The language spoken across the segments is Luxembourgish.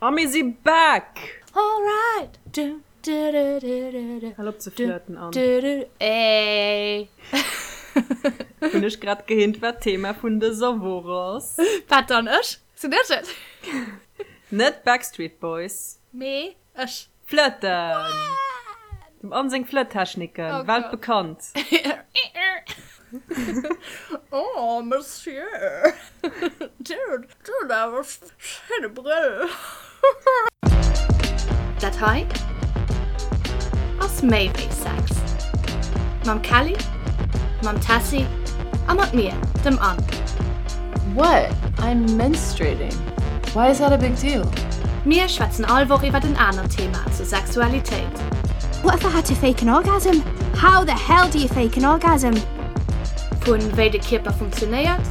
A mir si back! Alright! Du, du, du, du, du, du. Hal op ze flirten, Anne. Du, du, ey! Hunn ech grad gehint, wat d'Thema vun dëser Woch ass? Wat dann? Ech? Sinn ech et? Net Backstreet Boys. Mee ech. Flirten! Dem Anne seng Flirttechniken, Oh Gott. weltbekannt. Oh, Monsieur, Dir hutt awer schéine Brëll. Dat hei ass méi wéi Sex. Mam Kelly, mam Tessy a mat mir, dem Anne. What? I'm menstruating. Why is that a big deal? Mir schwätzen all Woch iwwert en anert Thema zur Sexualitéit. What if I had to fake an orgasm? How the hell do you fake an orgasm? Vu wéi de Kierper funktionéiert,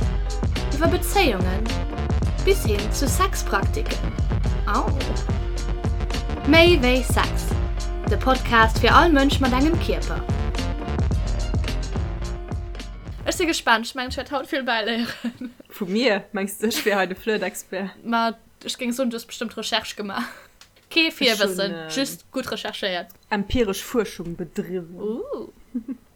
iwwer Bezéiungen bis hin zu Sexpraktiken. Au! Méi wéi Sex, de Podcast fir all Mënsch mat engem Kierper. Ech si gespaant, ech mengen ech wäert haut vill bäiléieren. Vu mir? Mengs de ech wier hei de Flirt-Expert? Ma ech géing soen, du hues bestëmmt Recherche gemaach. Kee Virwëssen, just gutt recherchéiert. Empiresch Fuerschung bedriwwen. Ooh.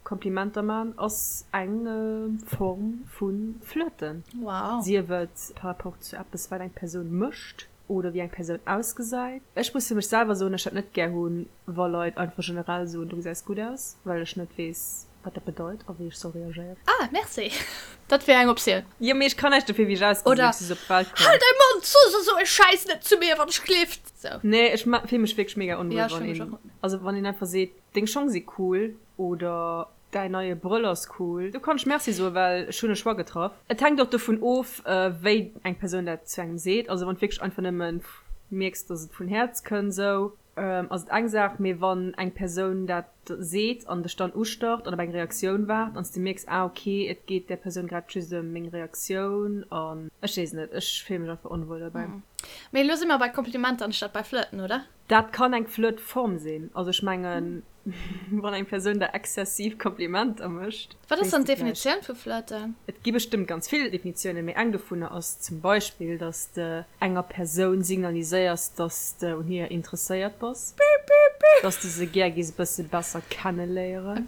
Komplimenter man ass eng Form vu Flirten. Wow. Sief et par rapport zu eppes wat eng Persoun mécht oder wéi eng Persoun ausgesäit. Ech muss fir mech selwer soen, ech dat net gär hunn, wa Leit einfach generell soen, du gesäis gutt aus, well ech net weess, wat dat bedeit a wéi ech soll reagéieren. Ah, merci. Dat wier eng Optioun. Jo, mee ech kann näischt dofir, wéi ech ausgesinn, Oder, ech si sou op d'Welt komm. Hal däi Mond, so sou e Schäiss net zu mir, wann ech gelift. Sou. Nee, ech fill mech wierklech mega onwuel, Ja, ech wann fill mech een, och. also wann een einfach seet, deng Schong si cool oder däin neie Brëll ass cool. Do kann ech Merci soen, well ech hunn e Choix getraff. Et hänkt och dovun of, wéi eng Persoun dat zu engem seet. Also wann du wierklech einfach nëmmen mierks, dass et vun Häerz kënnt, sou ass et eng Saach, mee wann eng Persoun dat seet an dech dann ustarrt an op eng Reaktioun waart an s de mierks, ah ok, et geet där Persoun grad just ëm meng Reaktioun an ech weess net, ech fille mech einfach onwuel dobäi. Mee elo si mer bei Komplimenter anstatt bei Flirten, oder? Dat kann eng Flirtform sinn. Also ech mengen, wann eng Persoun der exzessiv Komplimenter mécht. Wat ass dann d'Definitioun vu Flirten? Et gi bestëmmt ganz vill Definitiounen, mee eng dovunner ass zum Beispill, dass de enger Persoun signaliséiers, dass de un hir interesséiert bass, dass de se gär giss e bësse besser kenneléieren,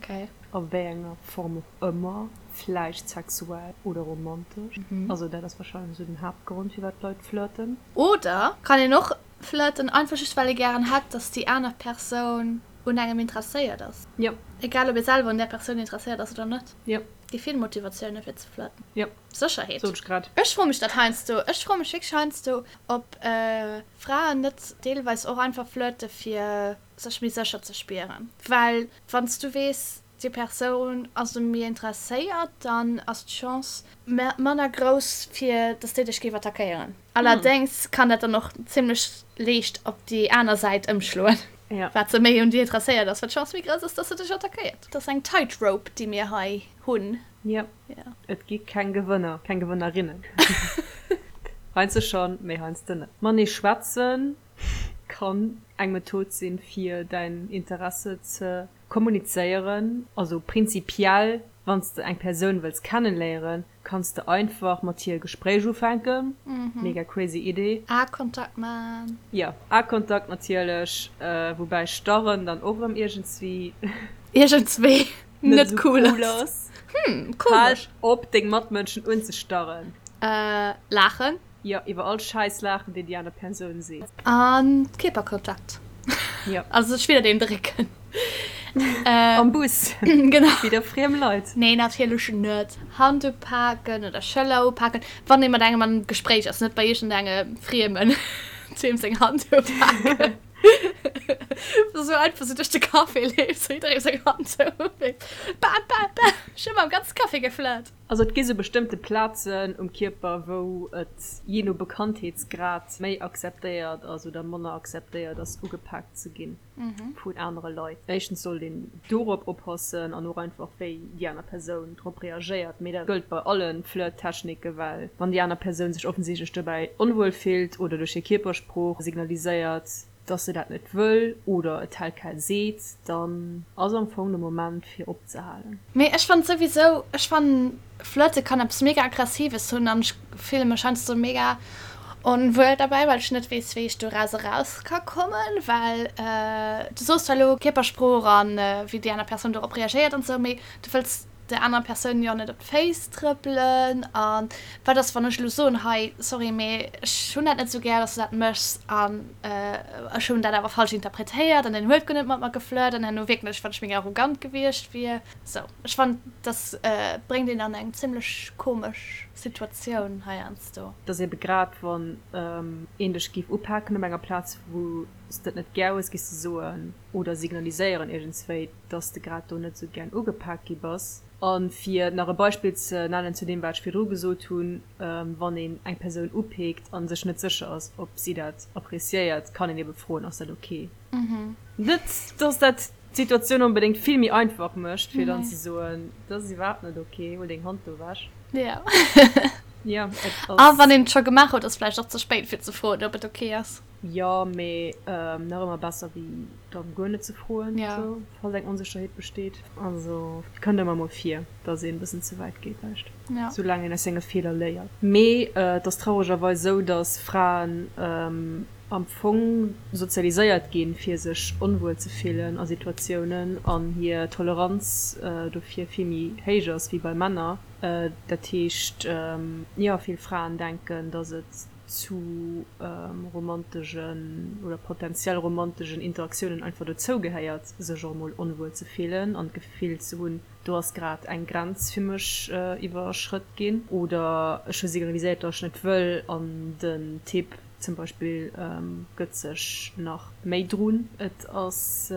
a wéi enger Form och ëmmer, vläicht sexuell oder romantesch. Also dat ass warscheinlech esou den Haaptgrond, firwat d'Leit flirten. Oder kann een och Flirten einfach just well ee gären hätt, dass déi aner Persoun un engem interesséiert ass. Jo. Egal ob ee selwer un där Persoun interesséiert ass oder net. Jo. Gi vill Motivatioune fir ze flirten. Jo. Sécherheet. Sot ech grad. Ech froe mech dat heiansdo. Ech froe mech wierklech heiansdo, ob Fraen net deelweis och einfach flirte fir sech méi sécher ze spieren. Well wann s du weess, déi Persoun ass u mir interesséiert, dann ass d'Chance manner grouss fir dass déi dech géif attackéieren. Allerdéngs kann dat dann och zimmlech liicht op déi aner Säit ëmschloen, wat se méi un dir interesséiert ass, wat d'Chance méi grouss ass, dass se dech attackéiert. Dat ass eng Tightrope, déi mir hei hunn. Jo, et gi keng Gewënner, keng Gewënnerinnen. Heiansdo schonn, mee heiansdo net. Matenee schwätzen kann eng Method sinn, fir däin Interesse ze Kommunizéieren, also prinzipiell wann s de eng Persoun wëlls kennenléieren, kanns de einfach mat hir e Gespréich ufänken, mega crazy Idee. Aekontakt man. Jo, Aekontakt natierlech, woubäi starren dann och erëm iergendswéi. Iergendswéi net esou cool ass. Hm, komesch. Hal op deng Matmënschen unzestarren. Laachen. Jo, iwwer all Schäiss laachen, deen déi aner Persoun seet. An Kierperkontakt. Jo. Also sech widder een drécken. Am Bus. Genau. Widder friem Leit. Nee, natierlech net. Hand upaken oder Schëller upaken, wann ee mat engem am Gespréich ass, net bei iergendengem Friemen deem seng Hand upaken. Sou einfach sou duerch de Café leeft, sou jidderee seng Hand sou upeekt. Bam, bam, bam. Ech hu mam ganze Café geflirt. Also et gi sou bestëmmte Plazen um Kierper, wou et jee no Bekanntheetsgrad méi akzeptéiert ass oder manner akzeptéiert ass, ugepaakt ze gi vun anere Leit. Éischtens sollt een dorop oppassen an och einfach wéi déi aner Persoun drop reagéiert. Mee dat gëllt bei alle Flirttechniken, well wann déi aner Persoun sech offensichtlech dobäi onwuel fillt oder duerch hir Kierpersprooch signaliséiert, dass se dat net wëll oder et tel quel seet, dann ass am Fong de Moment fir opzehalen. Mee ech fannen souwisou, ech fannen flirte kann eppes mega aggressives hunn an ech fille mech heiansdo mega. Onwuel derbäi, well ech net weess, wéi ech doraus eraus ka kommen, well du soos zwar elo Kierpersprooch an wéi déi aner Persoun dorop reagéiert an esou, mee du wëlls der anerer Persoun jo net op d'Féiss trëppelen. A wat ass, wann ech elo soen, hei, sorry, mee ech hunn dat net esou gär, dass du dat méchs an ech hunn dat awer falsch interpretéiert an deen huet guer net mat mer geflirt an herno wierken ech, wann ech méi arrogant gewiescht wier. Sou, ech fannen, dass bréngt een an eng zimmlech komesch Situatioun heiansdo. Et ass ebe grad wann een dech géif upaken op enger Plaz wou s de et net gär hues, géifs de soen oder signaliséieren iergendswéi, dass de grad do net esou gären ugepak gi bass. A fir nach e Beispill ze nennen zu deem wat ech virdru gesot hunn, wann een eng Persoun upeekt a sech net sécher ass ob si dat appreciéiert, kann een ebe froen, ass dat ok? Net dass dat d'Situatioun onbedéngt vill méi einfach mécht, fir dann ze soen, dat ass iwwerhaapt net ok, huel deng Hand do ewech. Jo. Jo, et ass. A wann een et scho gemaach huet, ass vläicht och ze spéit fir ze froen, ob et ok ass. Jo, mee nach ëmmer besser wéi dann guer net ze froen, sou, falls eng Onsécherheet besteet. Also, et kënnt ëmmer mol vir, dass een e bëssen ze wäit geet, vläicht. Soulaang een aus senge Feeler léiert. Mee et ass trauregerweis esou, dass Fraen am Fong sozialiséiert ginn, fir sech onwuel ze fillen a Situatiounen an hir Toleranz dofir vill méi héich ass wéi bei Männer. Dat heescht, jo, vill Fraen denken, dass et zu romantegen oder potentiell romantegen Interaktiounen einfach dozou gehéiert, sech och emol onwuel ze fillen an d'Gefill ze hunn, do ass grad eng Grenz fir mech iwwerschrëtt ginn oder ech hu signaliséiert, datt ech net wëll an den Typ zum Beispill gëtt sech nach méi drun. Et ass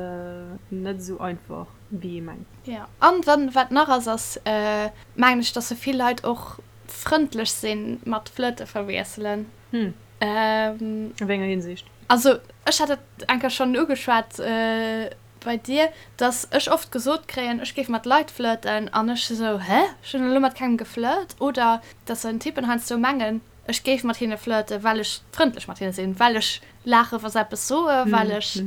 net esou einfach, wéi ee mengt. Jo, an dann, wat nach ass, ass mengen ech, datt esou vill Leit och frëndlech sinn mat Flirte verwiesselen. Hm. A wéi enger Hinsicht? Also ech hat dat eng Kéier schonn ugeschwat bei dir, dass ech oft gesot kréien, ech géif mat Leit flirten an ech esou, hä, ech hunn elo mat kengem geflirt. Oder dass en Typen heiansdo mengen, ech géif mat hinne flirten, well ech frëndlech mat hinne sinn, well ech laache wa se eppes soen, well ech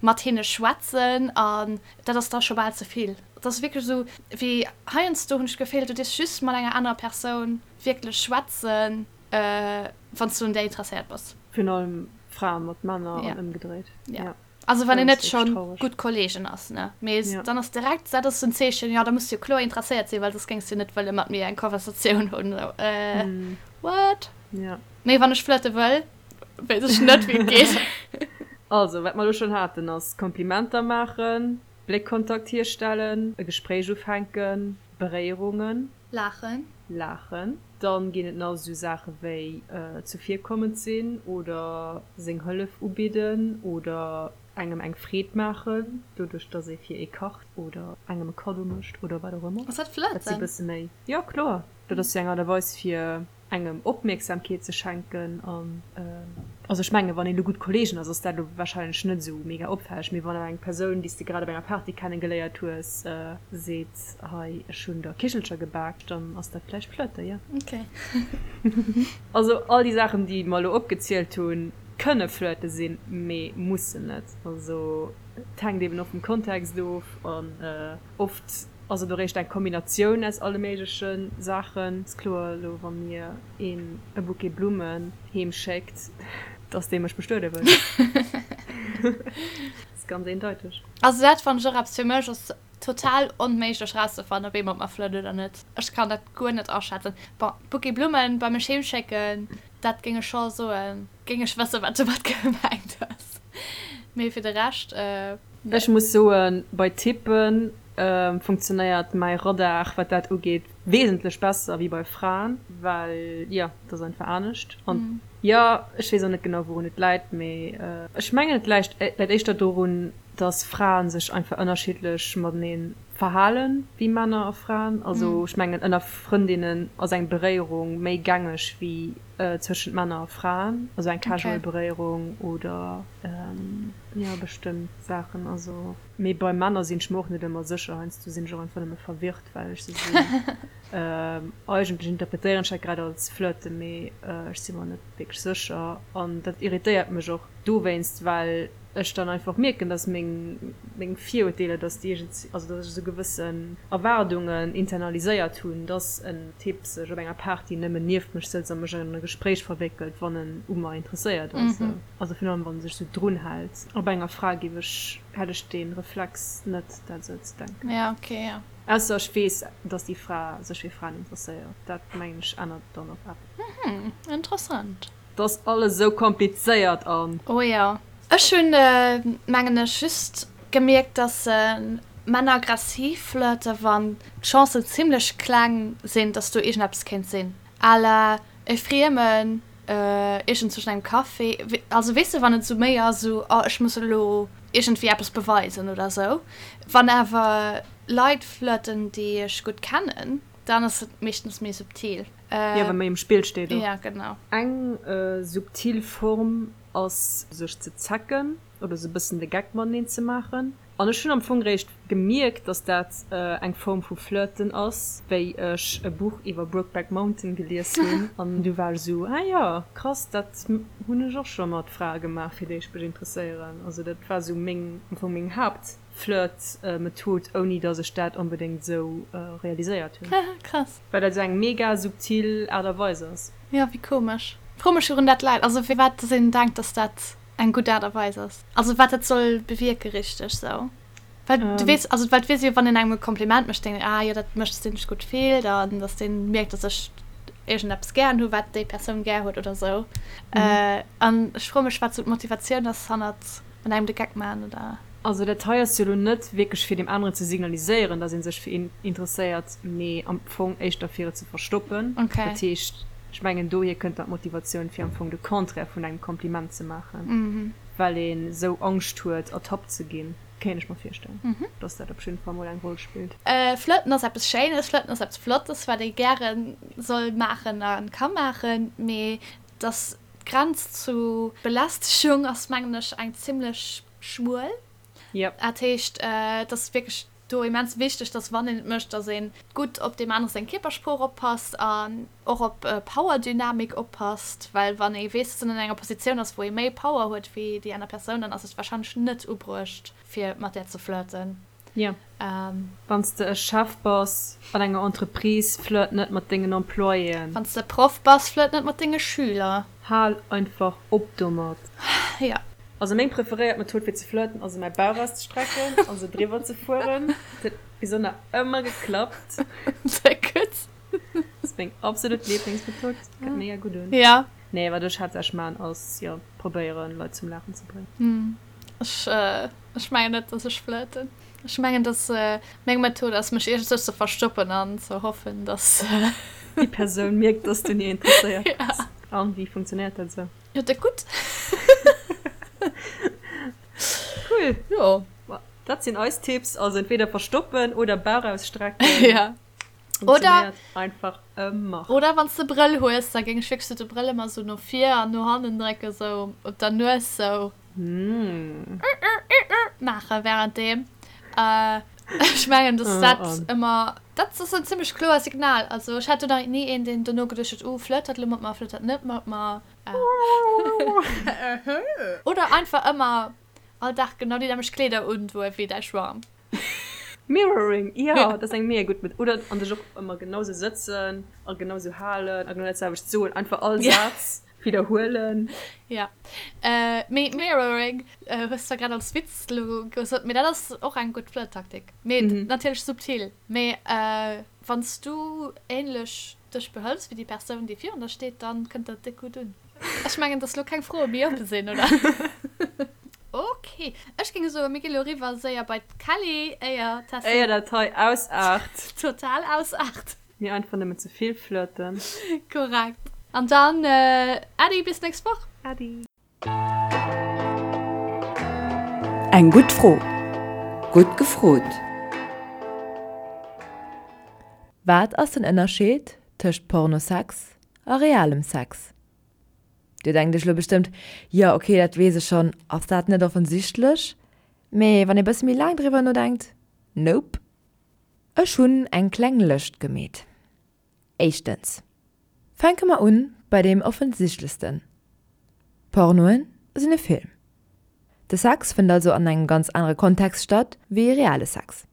mat hinne schwätzen an dat ass da scho bal ze vill. Et ass wierklech esou wéi heiansdo hunn ech d'Gefill, du dierfs just mat enger anerer Persoun wierklech schwätzen, wann s du un där interesséiert bass. Virun allem Frae mat Männer an ëmgedréit. Jo. Also wann een net scho gutt Kolleegen ass, ne. Mee dann ass direkt, dat ass en Zeechen, jo da muss du jo kloer interesséiert sinn, well soss géings du net wëlle mat mir eng Konversatioun hunn. Esou, äh, what? Jo. Mee wann ech flirte wëll, weess ech net wéi et geet. Also, wat mer elo schonn haten ass Komplimenter maachen, Bléckkontakt hierstellen, e Gespréich ufänken, Beréierungen. Laachen. Laachen. Dann ginn et nach esou Saache wéi zuvirkommend sinn oder seng Hëllef ubidden oder engem eng Freed maachen, doduerch dass ee fir ee kacht oder engem e Kaddo mécht oder wat och ëmmer. Ass dat Flirten? Dat si bësse méi, jo kloer, dat ass jo eng Aart a Weis fir engem Opmierksamkeet ze schenken an also ech mengen wann een elo gutt Kollegen ass, ass dat elo wahrscheinlech net esou mega opfälleg, mee wann awer eng Persoun déi s de grad op enger Party kenne geléiert hues seet hei ech hunn der Kichelcher gebak, dann ass dat vläicht Flirten, jo. Ok. Also all déi Saachen déi mer elo opgezielt hunn, kënne Flirte sinn, mee mussen net. Also et hänkt eben och vum Kontext of an oft Ass et eréischt eng Kombinatioun aus alle méigleche Saachen. Ass kloer, elo wa mir een e Bouquet Blummen heem schéckt, dass dee mech bestuede wëll. Ass ganz eendeiteg. Also dat fannen ech och eppes, fir mech ass total onméiglech rauszefannen ob ee mat mer flirt oder net. Ech kann dat guer net aschätzen. Bon, Bouquet Blummen bei mech heem schécken, dat géing ech scho soen, géing ech wëssen wat domat gemengt ass. Mee fir de Rescht. Ech muss soen, bei Typen funktionéiert mäi Radar, wat dat ugeet, wesentlech besser wéi bei Fraen, well jo, et ass einfach anescht. An jo, ech weess och net genau wourun et läit, mee ech mengen et läit éischter dorun, dass Fraen sech einfach ënnerschiddlech matenee verhalen wéi Männer a Fraen. Also ech mengen ënner Frëndinnen ass eng Beréierung méi gängeg wéi zwëschent Männer a Fraen, also eng casual Beréierung oder jo bestëmmt Saachen. Also mee bei Männer sinn ech mer och net ëmmer sécher, heiansdo sinn ech och einfach nëmme verwirrt, well ech sou sinn. Eigentlech interpretéieren ech dat grad als Flirten, mee ech si mer net wierklech sécher an dat irritéiert mech och. Dowéinst, well ech dann einfach mierken, dass meng meng Virurteeler, dass déi iergend, also dass ech esou gewëssen Erwaardungen internaliséiert hunn, dass en Typ sech op enger Party nëmmen nieft mech sëtzt a mech an e Gespréich verwéckelt, wann en u mer interesséiert ass. Also virun allem, wann e sech esou drun hält. A bei enger Fra géif ech, hätt ech dee Reflex net, dat esou ze denken. Ja, okay, ja. Ausser ech weess, dass déi Fra sech fir Fraen interesséiert. Dat, mengen ech, ännert dann och eppes. Mhm, interessant. 't ass alles esou komplizéiert an. Oh jo. Ech hunn, mengen ech, just gemierkt, dass Männer aggressiv flirten, wann d'Chancen zimlech kleng sinn, dass do iergendeppes kéint sinn. À la e Friemen iergend zwëschen engem Café. Also weess de, wann et esou méi ass, esou, oh ech muss elo iergendwéi eppes beweisen oder esou. Wann awer Leit flirten, déi ech gutt kennen, dann ass et meeschtens méi subtil. Jo, wa méi um Spill steet och. Ja, genau. Eng subtil Form ass sech ze zecken oder sou bëssen de Geck mateneen ze maachen. An ech hunn am Fong réischt gemierkt, dass dat eng Form vu Flirten ass, wéi ech e Buch iwwer Brokeback Mountain gelies hunn. An du war ech sou, ah jo, krass, dat hunn ech och scho mat Frae gemaach, fir déi ech mech interesséieren. Also dat war sou meng, am Fong meng Haapt. Flirt-Method, ouni dass ech dat onbedéngt esou realiséiert hunn. Krass. Well dat esou eng mega subtil Aart a Weis ass. Jo, wéi komesch. Fro mech wourun dat läit, also firwat dass een denkt, dass dat eng gutt Aart a Weis ass. Also wat dat soll bewierke richteg sou. Well du weess, also well du weess jo, wann een engem e Kompliment mécht, denkt een, ah jo, dat mécht, dass deen sech gutt fillt an dass deen mierkt, dass ech iergendeppes gären hu wat déi Persoun gär huet oder sou. An ech froe mech wat sou d'Motivatioun ass hannert An engem de Geck maan, oder? Also dat hei ass jo lo net wierklech fir deem aneren ze signaliséieren, dass ee sech fir een interesséiert, mee am Fong éischter fir et ze verstoppen. Okay. Dat heescht, ech mengen dohier kënnt dann d'Motivatioun fir am Fong de Contraire vun engem Kompliment ze maachen, well een esou Angscht huet ertappt ze ginn. Kéint ech mer virstellen, dass dat op jidden Fall mol eng Roll spillt. Flirten ass eppes Schéines, Flirten ass eppes Flottes, wat ee gäre soll maachen a ka maachen, mee dass D'Grenz zu Belästegung ass, mengen ech, eng zimlech schmuel. Yep. Dat heescht, et ass wierklech do immens wichteg, dass wann een et mécht, dass ee gutt op deem anere seng Kierpersprooch oppasst an och op Powerdynamik oppasst, well wann ee weess, dass een an enger Positioun ass, wou ee méi Power huet wéi déi aner Persoun, dann ass et warscheinlech net ubruecht, fir mat där ze flirten. Jo. Wann s de e Chef bass an enger Entreprise, flirt net mat dengen Employéen. Wann s de Proff bass, flirt net mat denge Schüler. Hal einfach op domat. Jo. Also meng preferéiert Method fir ze flirten ass mäi Bauch auszestrecken an se driwwer ze fueren. Dat huet bis elo nach ëmmer geklappt. Sehr gutt. Dat ass meng absolut Lieblingsmethod. Kënnt mega gutt un. Jo. Nee, wat ech haaptsächlech maan ass jo probéieren Leit zum Laachen ze bréngen. Ech, ech mengen net, dass ech flirten. Ech mengen, dass meng Method ass, mech iergendzwou ze verstoppen an ze hoffen, dass. Déi Persoun mierkt, dass du un hir interesséiert bass. An wéi funktionéiert dat esou? Jo, dat gutt. Cool. Jo. Dat sinn eis Tipps, also entweder verstoppen oder Bauch ausstrecken. Ja. Oder einfach ëmmer. Oder wann s de Brëll hues, da géing ech wierklech sou de Brëll ëmmer sou no vir an no hannen drécken, sou op der Nues sou maache währenddeem. Ech mengen, dass dat ëmmer, dat ass en zimmlech kloer Signal. Also ech hat do nach ni een, deen dono geduecht huet, oh flirt dat elo mat mer, flirt dat net mat mer. Oder einfach ëmmer all Dag genau déi nämmlecht Kleeder undoe wéi däi Schwarm. Mirroring, jo, dat ass eng mega gutt Method. Oder an dech och ëmmer genau sou sëtzen a genau sou halen a genau dat selwecht soen. Einfach all Saz widderhuelen. Jo, mee Mirroring hues zwar grad als Witz elo gesot, mee dat ass och eng gutt Flirttaktik. Mee natierlech subtil. Mee wann s du ähnlech dech behëls wéi déi Persoun, déi virun der steet, dann kënnt dat déck gutt un. Ech mengen, dass lo keng Froe méi oppe sinn, oder? Ok, ech géing soen, mir gi lo eriwwer séier bei d'Kelly, éier d'Tessy. Éier dat hei ausaart. Total ausaart. Mir einfach nëmmen ze vill flirten. Korrekt. An dann Äddi, bis nächst Woch. Äddi. Eng gutt Fro. Gutt gefrot. Wat ass den Ënnerscheed tëscht Pornosex a realem Sex? Dir denkt iech lo bestëmmt, jo ok dat weess ech schonn, ass dat net offensichtlech? Mee wann ee bësse méi laang driwwer nodenkt, nope. Ech hunn eng kleng Lëscht gemeet. Éischtens, fänke mer un bei deem offensichtlechsten, Pornoen. sinn e Film. De Sex fënnt also an engem ganz anere Kontext statt wéi reale Sex.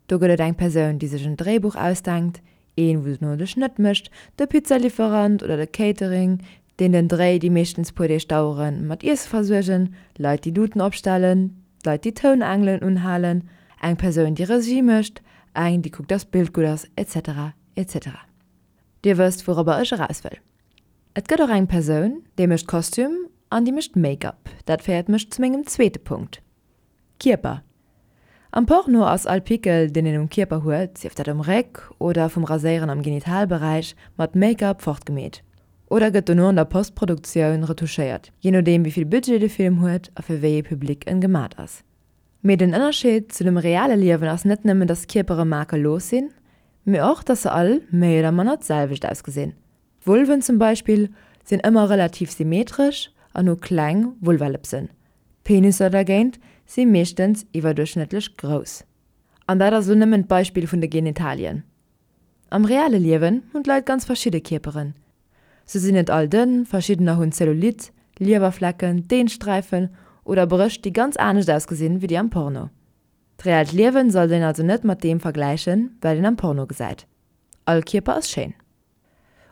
Do gëtt et eng Persoun, déi sech en Dréibuch ausdenkt, een, wou dono de Schnëtt mécht, de Pizzalieferant oder de Catering, deen den Dréi, déi meeschtens puer Deeg daueren, mat Iesse versuergen, Leit, déi Luuten opstellen, Leit, déi Tounangelen unhalen, eng Persoun, déi Regie mécht, eng, déi kuckt, dass d'Bild gutt ass, etc. Etc. Dir wësst, wourobber ech eraus wëll. Et gëtt och eng Persoun, déi mécht Kostüm an déi mécht Make-up. Dat féiert mech zu mengem zweete Punkt, Kierper. Am Porno ass all Pickel, deen een um Kierper huet, sief dat um Réck oder vum Raséieren am Genitalberäich, mat Make-up fortgemeet. Oder gëtt dono an der Postproduktioun retouchéiert, jee nodeem wéi vill Budget de Film huet a fir wéi ee Public en gemat ass. Mee den Ënnerscheed zu dem reale Liewen ass net nëmmen, dass d'Kierpere makellos sinn, mee och, dass se all méi oder manner d'selwecht ausgesinn. D'Vulven zum Beispill sinn ëmmer relativ symmetresch an hu kleng Vulvalëpsen. D'Penisser dergéint si meeschtens iwwerduerchschnëttlech grouss. An dat ass elo nëmmen d'Beispill vun de Genitalien. Am reale Liewen hunn d'Leit ganz verschidde Kierperen. Se sinn net all dënn, verschiddener hunn Zellulite, Liewerflecken, Dehnsträifen oder Brëscht déi ganz anescht ausgesinn wéi déi am Porno. D'reellt Liewen sollt een also net mat deem vergläichen, wat een am Porno gesäit. All Kierper ass schéin.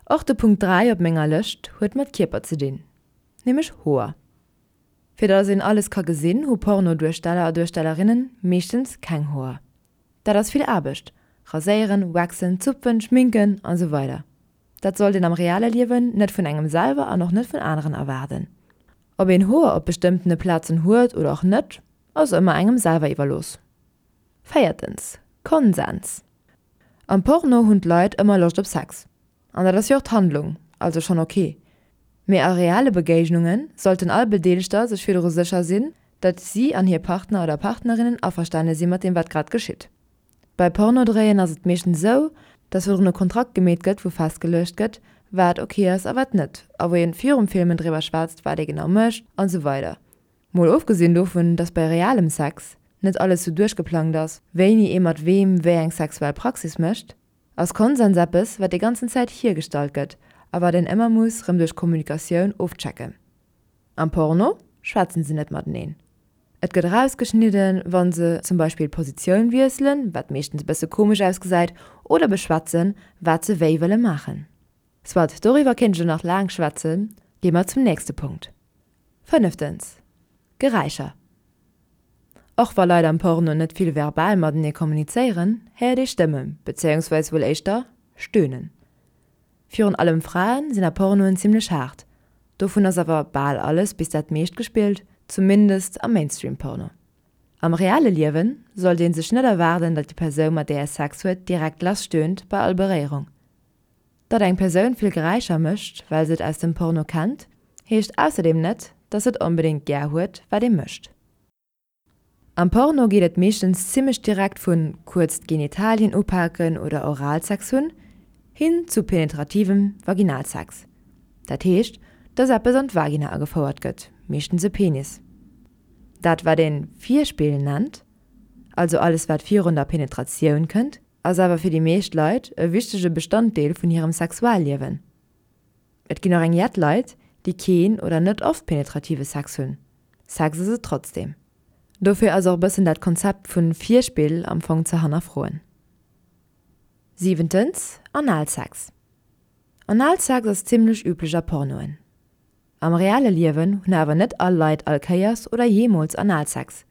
Och de Punkt 3 op menger Lëscht huet mat Kierper ze dinn, nämlech Hoer. Fir dass een alles ka gesinn, hu Porno-Duersteller a Duerstellerinnen meeschtens keng Hoer. Dat ass vill Aarbecht, raséieren, waxen, zupfen, schminken an esou weider Dat sollt een am reale Liewen net vun engem selwer an och net vun aneren erwaarden. Ob een Hoer op bestëmmtene Plazen huet oder och net, ass ëmmer engem selwer iwwerlooss. Véiertens, Konsens. Am Porno hunn d'Leit ëmmer Loscht op Sex. An dat ass jo och d'Handlung, also schonn ok. Mee a reale Begéignunge sollten all Bedeelegter sech virdru sécher sinn, datt si an hir Partner oder Partnerinnen averstane si mat deem wat grad geschitt. Bei Pornodréien ass et meeschtens esou, datt virdrun e Kontrakt gemeet gëtt wou festgeluecht gëtt, wat ok ass a wat net, a wou een virum Filmen driwwer schwätzt wat ee genau mécht an esou weider. Mol ofgesinn dovun, dass bei realem Sex net alles sou duerchgeplangt ass, wéini ee mat weem wéi eng sexuell Praxis mécht, ass Konsens eppes, wat déi ganzen Zäit hiergestallt gëtt a wat een ëmmer muss rëm duerch Kommunikatioun ofchecken. Am Porno schwätzen se net mateneen. Et gëtt erausgeschnidden, wann se zum Beispill d'Positioun wiesselen, wat meeschtens e bësse komesch ausgesäit, oder beschwätzen, wat se wéi wëlle maachen. Soit, doriwwer kéint ech elo nach laang schwätzen, gi mer zum nächste Punkt. Fënneftens, Geräischer. Och wa Leit am Porno net vill verbal matenee kommunizéieren, héiert ee Stëmmen, bezéiungsweis wuel éischter Stöhnen. Virun allem Fraen sinn a Pornoen zimmlech haart, dovun ass awer bal alles bis dat meescht gespillt, zumindest am Mainstream-Porno. Am reale Liewen sollt ee sech net erwaarden, datt déi Persoun mat där ee Sex huet direkt lass stöhnt bei all Beréierung. Datt eng Persoun vill Geräischer mécht, well se et aus dem Porno kennt, heescht ausserdeem net, datt se et onbedéngt gär huet, wat ee mécht. Am Porno geet et meeschtens zimmlech direkt vun kuerz d'Genitalien upaken oder Oralsex hunn, hin zu penetrativem Vaginalsex. Dat heescht, datt eppes an d'Vagina agefouert gëtt, meeschtens e Penis. Dat wat een Virspill nennt, also alles wat virun der Penetratioun kënnt, Ass awer fir déi meescht Leit e wichtege Bestanddeel vun hirem Sexualliewen. Et ginn och eng jett Leit, déi keen oder net oft penetrative Sex hunn. Sex ass et trotzdeem. Dofir ass och bëssen dat Konzept vun Virspill am Fong ze hannerfroen. Siwentens, Analsex. Analsex ass zimmlech üblech a Pornoen. Am reale Liewen hunn awer net all Leit all Kéiers oder jeemools Analsex.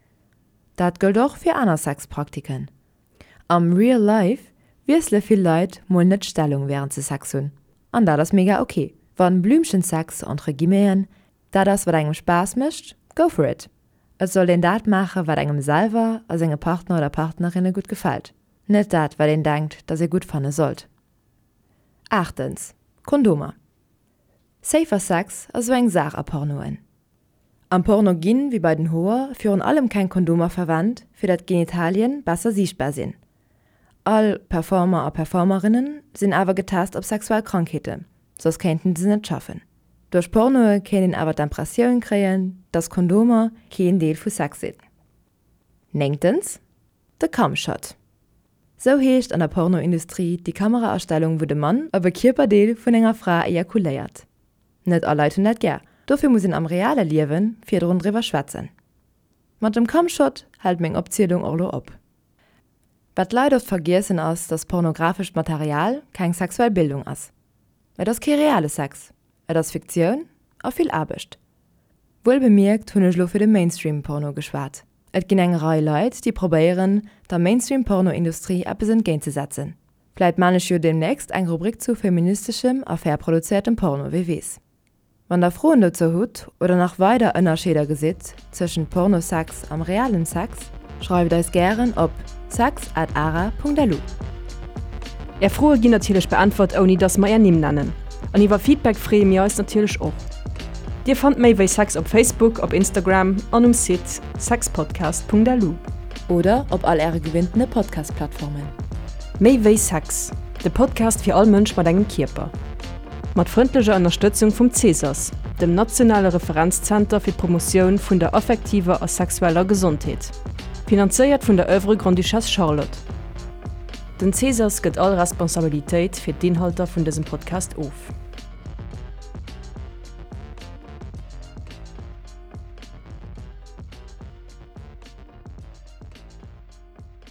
Dat gëllt och fir aner Sexpraktiken. Am Real Life wiessele vill Leit mol net d'Stellung wärend se Sex hunn. An dat ass mega ok. Wann Blümchensex, entre guillemeten, dat ass wat engem Spaass mécht, go for it! Et sollt een dat maache wat engem selwer a senge Partner oder Partnerinne gutt gefält, net dat wat een denkt dass ee gutt fanne sollt. Aachtens, Kondomer. Safer Sex ass esou eng Saach a Pornoen. Am Porno ginn, wéi bei den Hoer, virun allem keng Kondomer verwennt, fir dat d'Genitalien besser siichtbar sinn. All Performer a Performerinnen sinn awer getest op sexuell Krankheeten, soss kéinten se net schaffen. Duerch Pornoe kéint een awer d'Impressioun kréien, dass Kondomer keen Deel vu Sex sinn. Néngtens, De Cumshot. Sou heescht an der Pornoindustrie déi Kameraastellung wou de Mann op e Kierperdeel vun enger Fra ejakuléiert. Net all Leit hunn dat gär. Dofir muss een am reale Liewe virdrun driwwer schwätzen. Mat dem Cumshot hält meng Opzielung och lo op. Wat d'Leit oft vergiessen ass, dass pornografescht Material keng sexuell Bildung ass. Et ass kee reale Sex, et ass Fiktioun a vill Aarbecht. Wuel bemierkt hunn ech lo fir de Mainstream-Porno geschwat. Et ginn eng Rei Leit, déi probéieren, der Mainstream-Porno-Industrie eppes entgéintzesetzen. Vläit maan ech jo demnächst eng Rubrik zu feministeschem a fair produzéiertem Porno, wie weess. Wann der Froen dozou hutt oder nach weider Ënnerscheeder gesitt tëschent Pornosex am realen Sex, schreift eis gären op sex at ara.lu. Är Froe ginn natierlech beäntwert ouni dass mer är Nimm nennen. An iwwer Feedback freeë mir eis natierlech och. Dir fannt méi wéi Sex op Facebook, op Instagram an um Site sexpodcast.lu. Oder op all äre gewinntene Podcast-Plattformen. Méi wéi Sex, de Podcast fir all Mënsch mat engem Kierper. Mat frëndlecher Ënnerstëtzung vum CSAS, dem nationale Referenzzenter fir d'Promotioun vun der affektiver a sexueller Gesondheet. Finanzéiert vun der Oeuvre Grande-Duchesse Charlotte. Den CSAS gëtt all Responsabilitéit fir d'Inhalter vun dësem Podcast of.